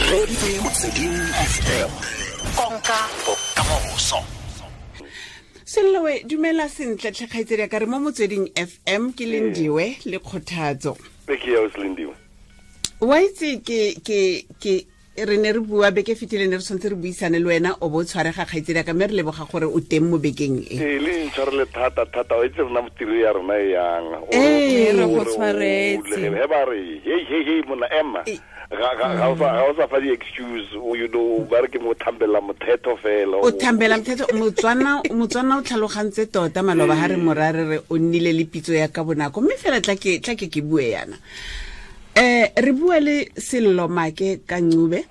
Reditse Motsweding FM, konka bokamoso. Sellowe, dumela sentle tlhe kgaitsedi ya ka, re mo Motsweding FM, ke Lindiwe le Kgothatso. Ke ya Lindiwe. Wa itse, ke re ne re bua beke fetile, ne re tshwanetse re buisane le wena, o bo o tshwarega, kgaitsedi ya ka, mme re leboga gore o teng mo bekeng e. Ee, le ntshwarele thata thata. Wa itse rona tiro ya rona e yang. Ee, re go tshwaretse. He ba re, "Hey, hey, hey, monna, ema." Ga o sa fa di-excuse, ba re ke mo thambela mothetho fela. O thambela mothetho. Motswana o tlhalogantse tota. Maloba ga re mora re re o nnile le pitso ya ka bonako, mme fela tla ke bue yana. Re bua le Sello Maake kaNcube,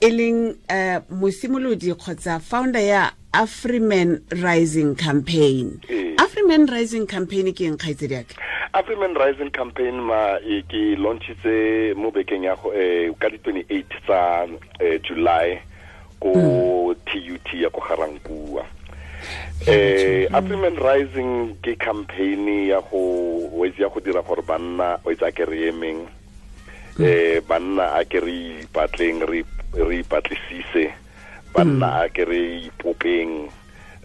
e leng mosimolodi kgotsa founder ya Afrimen Rising Campaign. Afrimen Rising Campaign ke eng, kgaitsedi yake? Afrimen Rising Campaign, ma e ke launchitse mo bekeng ya go ka di 28 tsa July ko TUT ya ko Garankuwa. Afrimen Rising ke campaign ya go o itse ya go dira gore banna, o itse, a ke re emeng, banna a ke re ipatleng, re ipatlisise, banna a ke re ipopeng,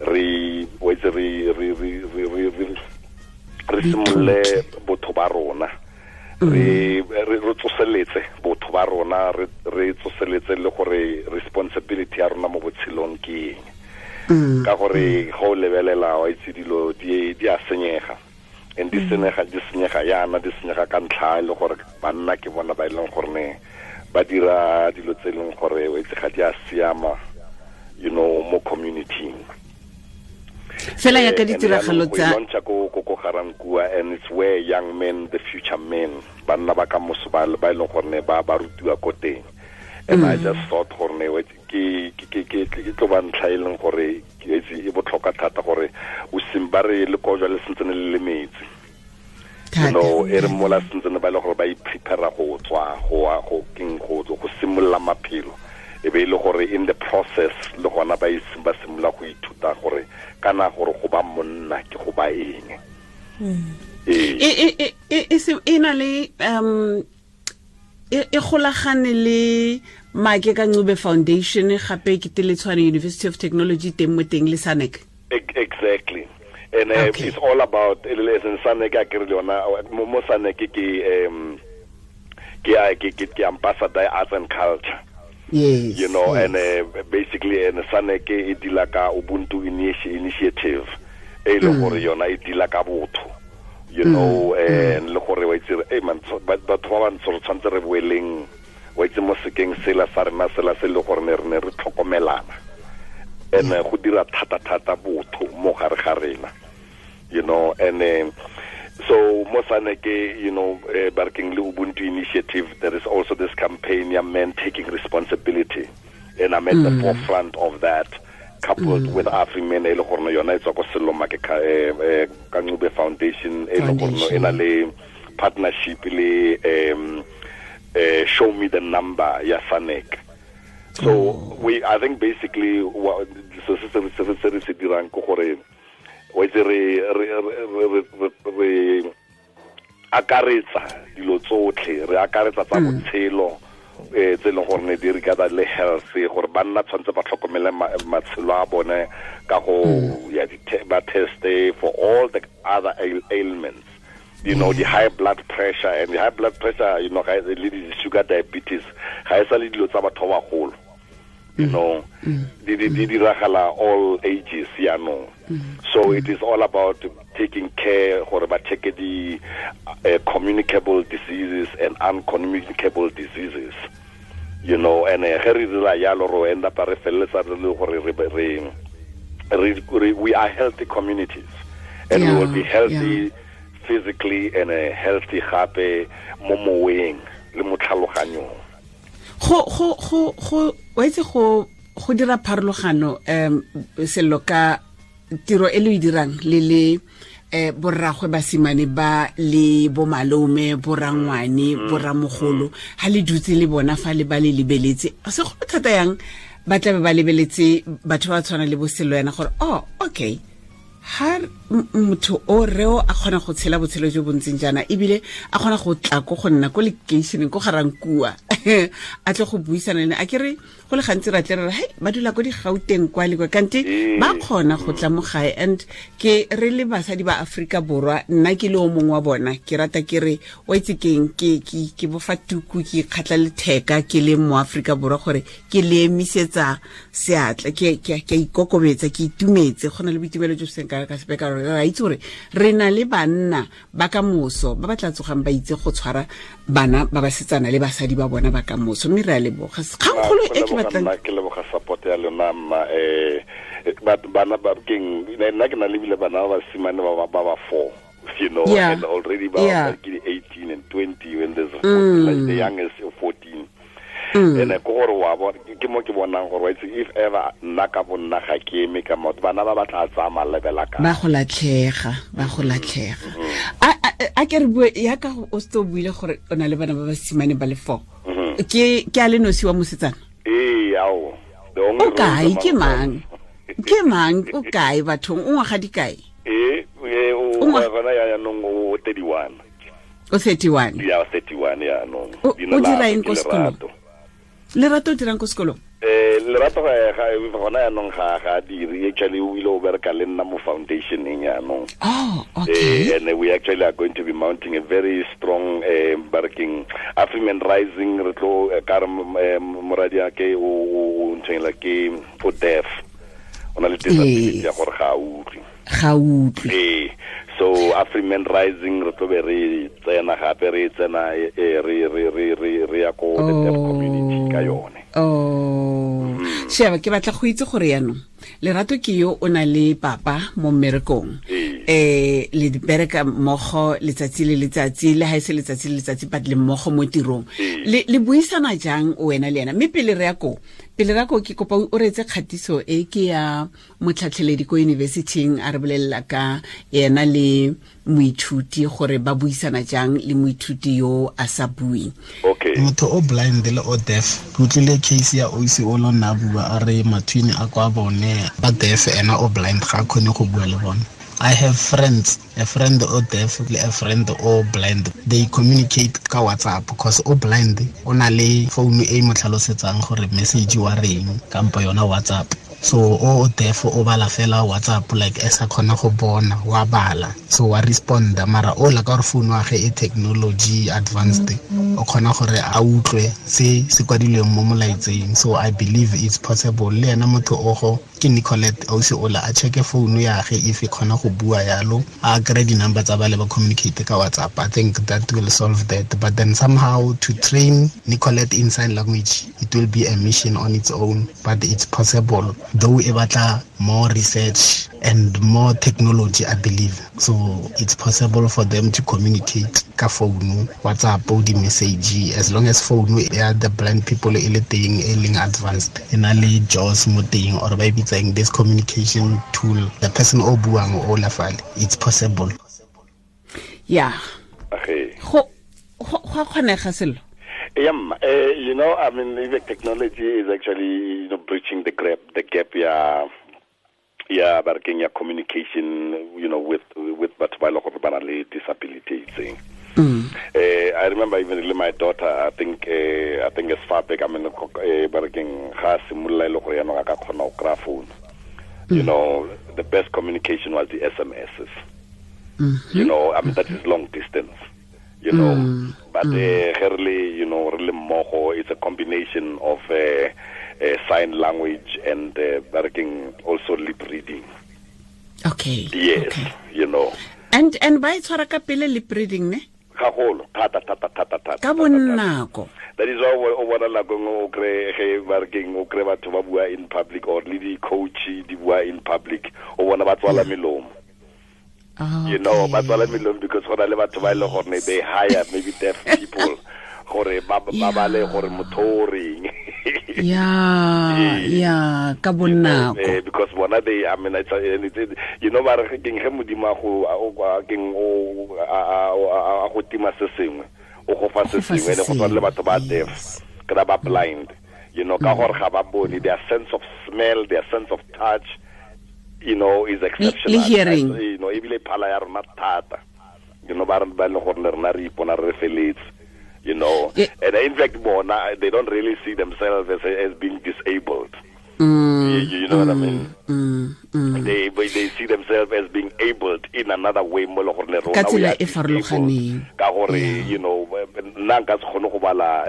re o itse re simolole botho ba rona, re tsoseletse botho ba rona, re tsoseletse le gore responsibility ya rona mo botshelong ke eng, ka gore ga o lebelela, wa itse, dilo di a senyega, and di senyega yana, di senyega ka ntlha e le gore banna ke bona ba e leng gore ne ba dira dilo tse e leng gore, wa itse, ga di a siama mo community. Fela ya ka ditiragalo tsa Launcha ko Garankuwa, and it's where young men, the future men, banna ba ka moso, ba e leng gore ne ba rutiwa ko teng. And I just thought gore ne ke tlo ba ntlha e leng gore ke itse e botlhokwa thata gore o sim ba re le kojwa le sentsene le le metsi e re mola sentsene ba e le gore ba iprepare go tswa go wa go keng go simolola maphelo, e be e le gore in the process le gona ba ba simolola go ithuta gore kana gore go ba monna ke go ba eng. Ee. E na le e golagane le Maake ka Ncube Foundation, gape ke Teletshwane University of Technology teng mo teng le SANEC. Exactly. And it's all about as in SANEC a ke re le yona mo SANEC ke ambassador ya arts and culture. And basically, and SANEC e deala ka Ubuntu Initiative, e le gore yona e deala ka botho and le gore, wa itse, hey man, batho ba bantsho re tshwanetse re boeleng, wa itse, mo sekeng sela sa rena sela se le gore ne re ne re tlhokomelana and go dira thata thata botho mo gare ga rena and so mo SANEC, barking le Ubuntu Initiative, there is also this campaign ya men taking responsibility, and I'm at the forefront of that, coupled with Afrimen, e le gore yona e tswa ko Sello Maake ka Ncube Foundation, e le gore e na le partnership le Show Me the Number ya SANEC. So we I think basically what so se re se dirang ke gore, wa itse, re akaretsa dilo tsotlhe, re akaretsa tsa botshelo tse e leng gore ne di re ka le health, gore banna tshwanetse ba tlhokomele matshelo a bone ka go ya ba teste for all the other ailments, the high blood pressure, and the high blood pressure ga le di sugar diabetes ga e sa le dilo tsa batho ba bagolo, di diragala all ages yaanong. So it is all about taking care gore ba check the communicable diseases and uncommunicable diseases and ge re dira yalo, ro end up re feleletsa re le gore we are healthy communities and we will be healthy physically and healthy gape mo moweng le mo tlhaloganyong. Go wa itse, go dira pharologano, Sello, ka tiro e le o e dirang le borragwe basimane ba le bomalome, borangwane, boramogolo, ha le dutse le bona fa le ba le lebeletse, segolo thata yang ba tlabe ba lebeletse batho ba tshwana le boSello yana gore, oh, okay. Ha motho o reo a kgona go tshela botshelo jo bontseng jaana, ebile a kgona go tla ko go nna ko lekeišeneng ko Garankuwa, a tle go buisana le ene. A ke re go le gantsi ra tle re re hei ba dula ko Digauteng kwa le kwa, kante ba kgona go tla mo gae. And ke re le basadi ba Aforika Borwa, nna ke le o mongwe wa bona, ke rata ke re wa itse keng, ke bofa tuku, ke ikgatla letheka ke le mo Aforika Borwa gore ke le emisetsa seatla, ke a ikokobetsa, ke itumetse. Go na le boitumelo jo bo seng ka sepe, ka gore re a itse gore re na le banna ba ka moso ba ba tla tsogang ba itse go tshwara bana ba basetsana le basadi ba bona ba ka moso. Mme re a leboga. Kgangkgolo e ke batlang ke leboga support ya lona mma. Bana ba keng, nna ke na le bile bana ba basimane ba ba 4, you know, and already ba ke 18 and 20 when there's like the youngest 14. And ko gore wa bona ke mo ke bonang gore if ever nna ka bonna ga ke eme ka motho, bana ba batla tsaya malebela ka ba go latlhega, ba go latlhega. A ke re bue ya ka o se o buile gore o na le bana ba basimane ba le 4. Ke a le nosi wa mosetsana? Ee, ao. O kae? Ke mang? Ke mang? O kae bathong? O ngwaga di kae? Ee, o gona ya nong o 31. O 31? Ya 31 ya nong. O dira eng ko sekolong? Lerato o dirang ko sekolong? Lerato ga gona yaanong ga dire. Actually o ile o bereka le nna mo foundationeng yaanong. Oh, okay. And we actually are going to be mounting a very strong barking Afriman Rising. Re tlo ka re moradi ake o nthengla ke o deaf, o na le disability ya gore ga a utlwe. Ga utlwe. So Afriman Rising re tlo be re tsena gape, re tsena re ya ko the deaf community ka yone. Oh. Sheba, ke batla go itse gore yaanong Lerato ke yo o na le papa mo mmerekong, le bereka mmogo letsatsi le letsatsi, le ha e se letsatsi le letsatsi but le mmogo mo tirong. Le buisana jang wena le ena? Mme pele re ya ko, ke kopa o reetse kgatiso e ke ya motlhatlheledi ko universityng, a re bolelela ka ena le moithuti gore ba buisana jang le moithuti yo a sa buing. Okay. Motho o blind le o deaf, ke utlwile case ya oisi o lona bua a re mathwini a kwa bone ba deaf, ena o blind ga kgone go bua le bone. I have friends, a friend o deaf le a friend o blind. They communicate ka WhatsApp because o blind o na le phone e mo tlhalosetsang gore message wa reng kampo yona WhatsApp. So o deaf o bala fela WhatsApp like e sa kgona go bona, wa bala, so wa responda. Mara o la ka gore phone wa ge e technology advanced, o kgona gore a utlwe se se kwadilweng mo molaetseng. So I believe it's possible. Le ena motho o go ke Nicolette ausi ola a checke phone ya ge if e kgona go bua yalo, a kry di-number tsa bale ba communicate ka WhatsApp. I think that will solve that. But then somehow to train Nicolette in sign language, it will be a mission on its own, but it's possible. Though e batla more research and more technology, I believe. So it's possible for them to communicate ka phone, WhatsApp, or the message, as long as phone ya the blind people e le teng, e leng advanced, e na le JAWS mo teng, or ba e bitsang this communication tool, the person o buang o la fale, it's possible. Yeah. Okay. Go kgonega selo. Yeah, you know, I mean, the technology is actually, you know, bridging the gap, yeah, barking ya communication, you know, with batho ba le gore ba na le disability itseng. I remember even my daughter, I think as far back, I mean, barking ga simolola ile gore yana ka kgona go kry-a phone. You know, the best communication was the SMSs. You know, I mean, that is long distance. You know, but really, you know, really mmogo, it's a combination of sign language and working also lip reading. Okay. Yes, okay. You know. And ba e tshwara ka pele lip reading ne? Gagolo, thata. Ka bonako. That is why o bona nako nngwe o kry ge ba re keng, o kry batho ba bua in public or le di-coach di bua in public, o bona ba tswala melomo. Okay. You know, ba tswala melomo because go na le batho ba e leng gore they hire maybe deaf people gore ba bale gore motho o reng. Yeah, ka bonako. Because bona they, I mean, it's, you know, ba re keng ge modimo a go keng o a go tima se sengwe, o go fa se sengwe, le go tshwana le batho ba deaf, kana ba blind, you know, ka gore ga ba bone, their sense of smell, their sense of touch You know, is exceptional. Le hearing. You know, ebile phala ya rona thata. You know, ba re ba le gore le rena re ipona re feletse. You know, and in fact, bona, they don't really see themselves as being disabled. You know what I mean? They see themselves as being abled in another way. Mo le gore le rona Ka we tsela are e farologaneng. disabled. Ka gore, you know, nna nka se kgone go bala,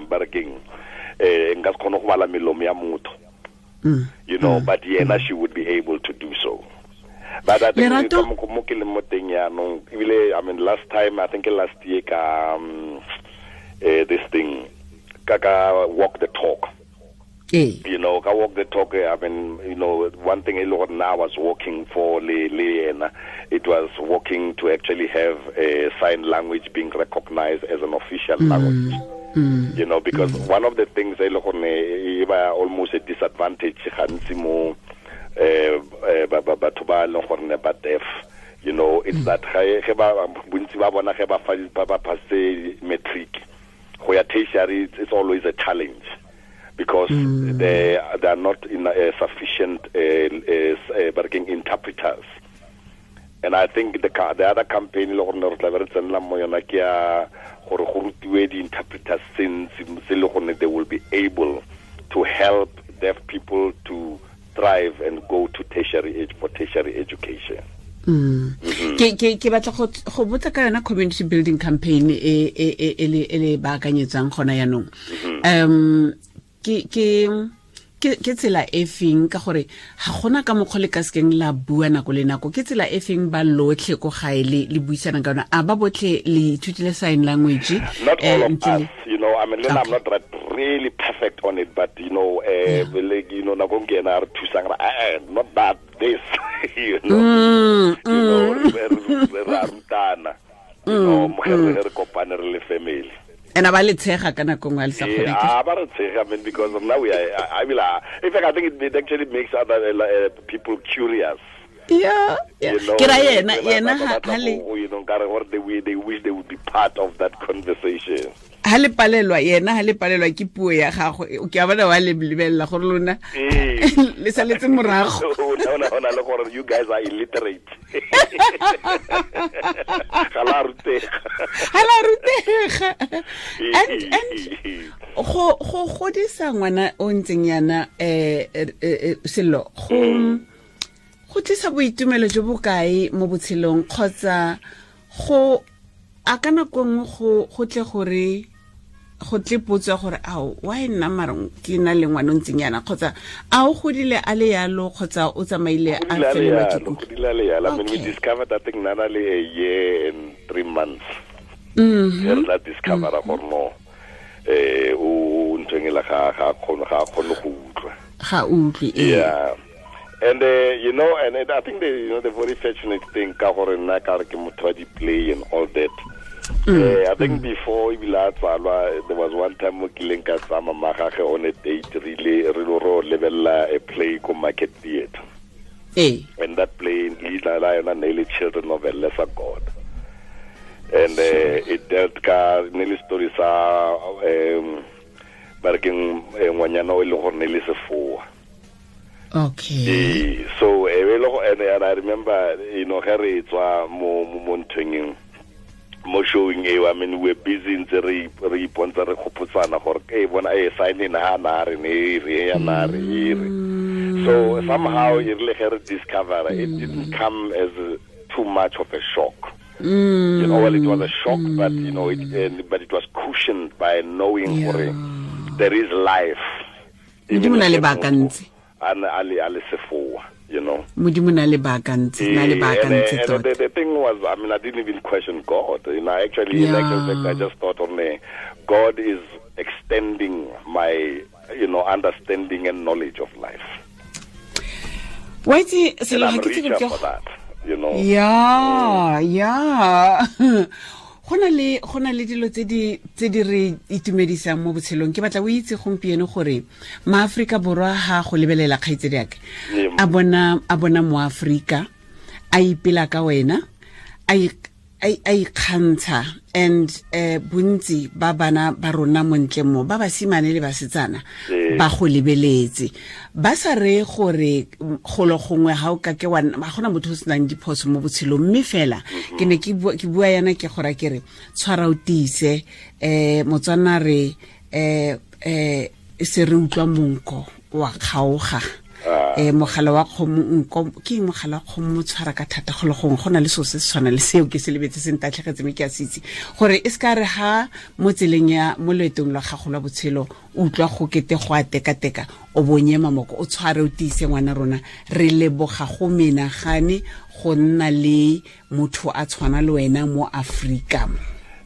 ba re keng, nka se kgone go bala melomo ya motho. You know, but yena, she would be able to do so. But I think Lerato? ka mo ke leng mo teng jaanong, ebile, I mean, last time, I think last year ka, this thing, ka walk the talk. You know, ka walk the talk, I mean, you know, one thing e le gore nna I was walking for le yena, it was walking to actually have a sign language being recognized as an official language. You know, because one of the things e le gore e ba almost a disadvantage gantsi mo, batho ba leng gore ne ba deaf, you know, it's that ge ba, bontsi ba bona ge ba fa, ba passe matric, go ya tertiary, it's always a challenge. Because they are not in sufficient working interpreters. And I think the other campaign le gore ne re tla be re tsenela mo yona ke ya gore go rutiwe di-interpreters tse ntsi tse le gore they will be able to help deaf people to thrive and go to tertiary age for tertiary education. Ke batla go botsa ka yona community building campaign e le baakanyetsang gona jaanong. Ke tsela e feng, ka gore ga gona ka mokgwa le ka sekeng la bua nako le nako, ke tsela e feng ba lotlhe ko gae le buisanang ka yona? A ba botlhe le ithutile sign language? Not all of Ntle le us, you know, I mean, I'm not really perfect on it, but you know, like, you know, nako ke ena a re thusang, re, not that, this, you know. You know, re a rutana, you know, mo ge re kopane re le family. And a ba le tshega ka nako nngwe a le sa kgone ke? Ba re tshega, I mean, because now we are, I mean, in fact, I think it actually makes other people curious. Yeah, yeah. You know, Ke ra yena, ba yena ba ha, batla ha le go, you know, nkare gore they wish they would be part of that conversation. Ha le palelwa, yena ha le palelwa ke puo ya gago, ke a bona wa le lebella gore lona le saletse morago. No, no, no, no, le gore you guys are illiterate. Ga la rutega. Ga la rutega. And go godisa ngwana o ntseng yana, Sello, go tlisa boitumelo jo bo kae mo botshelong, kgotsa go a ka nako nngwe go tle gore go tle potso ya gore ao, why nna mara ke na le ngwana o ntseng yana, kgotsa a o godile a le yalo, kgotsa o tsamaile a Godile a le felelwa ke yalo, kutlo? godile a le yalo. I mean, we discovered, I think, Nana le a year and 3 months. Re tla discovera gore no, o nthweng e le ga kgone, ga kgone go utlwa. Ga utlwe, ee. Yeah. And you know, and I think the, you know, the very fortunate thing, ka gore nna ka re ke motho wa di-play and all that. I think before ebile a tsalwa, there was one time mo kileng ka tsaya mama gagwe on a date, re ile re lo ro lebella a play ko Market Theatre. And that play, leina la yona ne le Children of a Lesser God. And it dealt ka ne le story sa, ba re keng, ngwanyana o e leng gore ne le sefoa. So, and I remember, you know, ge re tswa mo nthweng eo, mo showing eo, I mean, we're busy ntse re ipontsha re gopotsana gore, e bona, e sign in ha na re ne re ya na re e re. So somehow e rile ge re discover, it didn't come as too much of a shock. You know, well, it was a shock, but you know, it, but it was cushioned by knowing gore there is life. Modimo na le baakantse. A ne a le, a le sefoa, you know. Modimo na le baakantse, na le baakantse And tota. the thing was, I mean, I didn't even question God. You know, actually, in actual fact, I just thought only God is extending my, you know, understanding and knowledge of life. Wa itse, selo And I'm ga ke tsebe richer ke for that, you know. Yeah, yeah. Go na le, go na le dilo tse di, tse di re itumedisang mo botshelong. Ke batla o itse gompieno gore maAforika Borwa ha go lebelela kgaitsedi ya ka, a bona, a bona moAforika, a ipela ka wena, a a ikgantsha and bontsi ba bana ba rona montle mo ba basimane le basetsana ba go lebeletse ba sa re gore golo gongwe ga o ka ke wa ga gona motho o senang diphoso mo botshelong mme fela ke ne ke bua yana ke gora ke re tshwara o tiise Motswana re se re utlwa monko wa kgaoga mogala wa kgomo nko ke mogala wa kgomo mo tshwara ka thata go le gongwe go na le seo se se tshwana le seo ke se lebetse se ntatlhegetse mme ke a se itse gore e se ka re ha mo tseleng ya mo loetong lwa gago lwa botshelo o utlwa go kete go a tekateka o bonye mamoko o tshware o tiise ngwana rona re leboga go menagane go nna le motho a tshwana le wena mo Afrika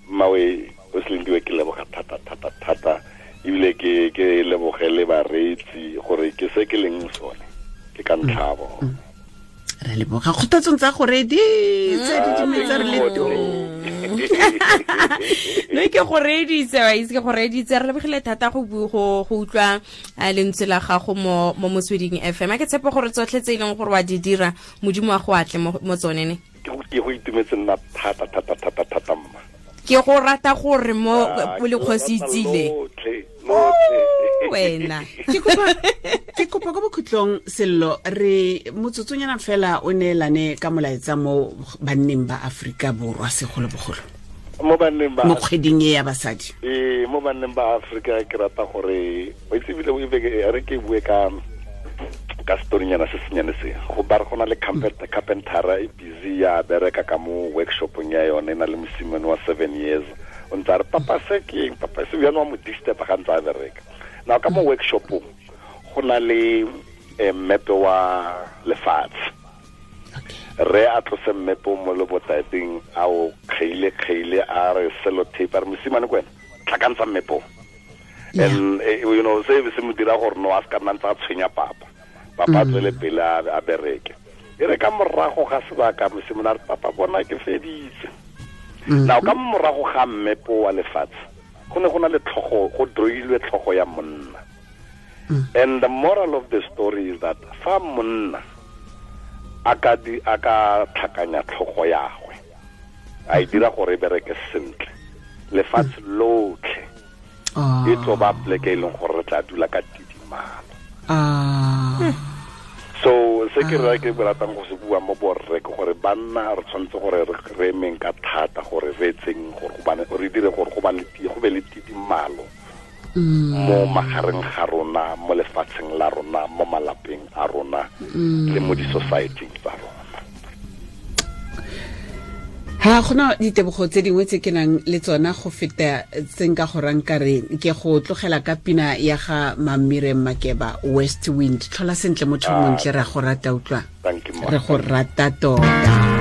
mawe o selendiwe ke leboga thata thata thata ebile ke leboge le bareetsi gore ke se ke leng sone ke ka ntlhabo re leboga kgothatsong tsa go reditse di dumetse re le tong no ke go reditse wa itse ke go reditse re lebogile thata go utlwa lentswe la gago mo Motsweding FM a ke tshepe gore tsotlhe tse e leng gore wa di dira Modimo wa go atle mo tsone ne ke go itumetse nna thata thata thata thata mma ke go rata gore mo le kgosi itsile wena ke kopa ko bokhutlong Sello re motsotsonyana fela o neelane ka molaetsa mo banneng ba Afrika Borwa segolobogolo mo banneng ba mo kgweding e ya basadi mo banneng ba Afrika ke rata gore o itse bile o re ke bue ka storynyana se senyane se go ba re go na le carpentera e busy ya bereka ka mo workshopong ya yone e na le mosimane wa 7 years o ntse a re papa se ke eng papa se bjalo wa mo disturb ga ntse a bereka now ka mo workshopong go na le mmepe wa lefatshe re a tlose mmepe mo lebotateng a o kgeile a re sellotape a re mosimane ko wena tlhakantsha mmepe and you know se se mo dira gore no a se ka nna ntse a tshwenya papa papa tswele pele a bereke e re ka morago ga sebaka mosimane a re papa bona ke feditse now ka morago ga mmepe wa lefatshe go ne go na le tlhogo go droilwe tlhogo ya monna and the moral of the story is that fa monna a ka tlhakanya tlhogo ya gagwe a e dira gore e bereke sentle lefatshe lotlhe e tlo ba pleke e leng gore re tla dula ka tidimalo so se ke re ke ratang go se bua mo borre ke gore banna re tshwanetse gore re emeng ka thata gore re etseng gore re dire gore go be le tidimalo mo magareng ga rona mo lefatsheng la rona mo malapeng a rona le mo di-society tsa rona ha gona ditebogo tse dingwe tse ke nang le tsona go feta tse nka go rang ka re ke go tlogela ka pina ya ga Mamire Makeba West Wind tlhola sentle motho montle re go rata utlwa re go rata tota.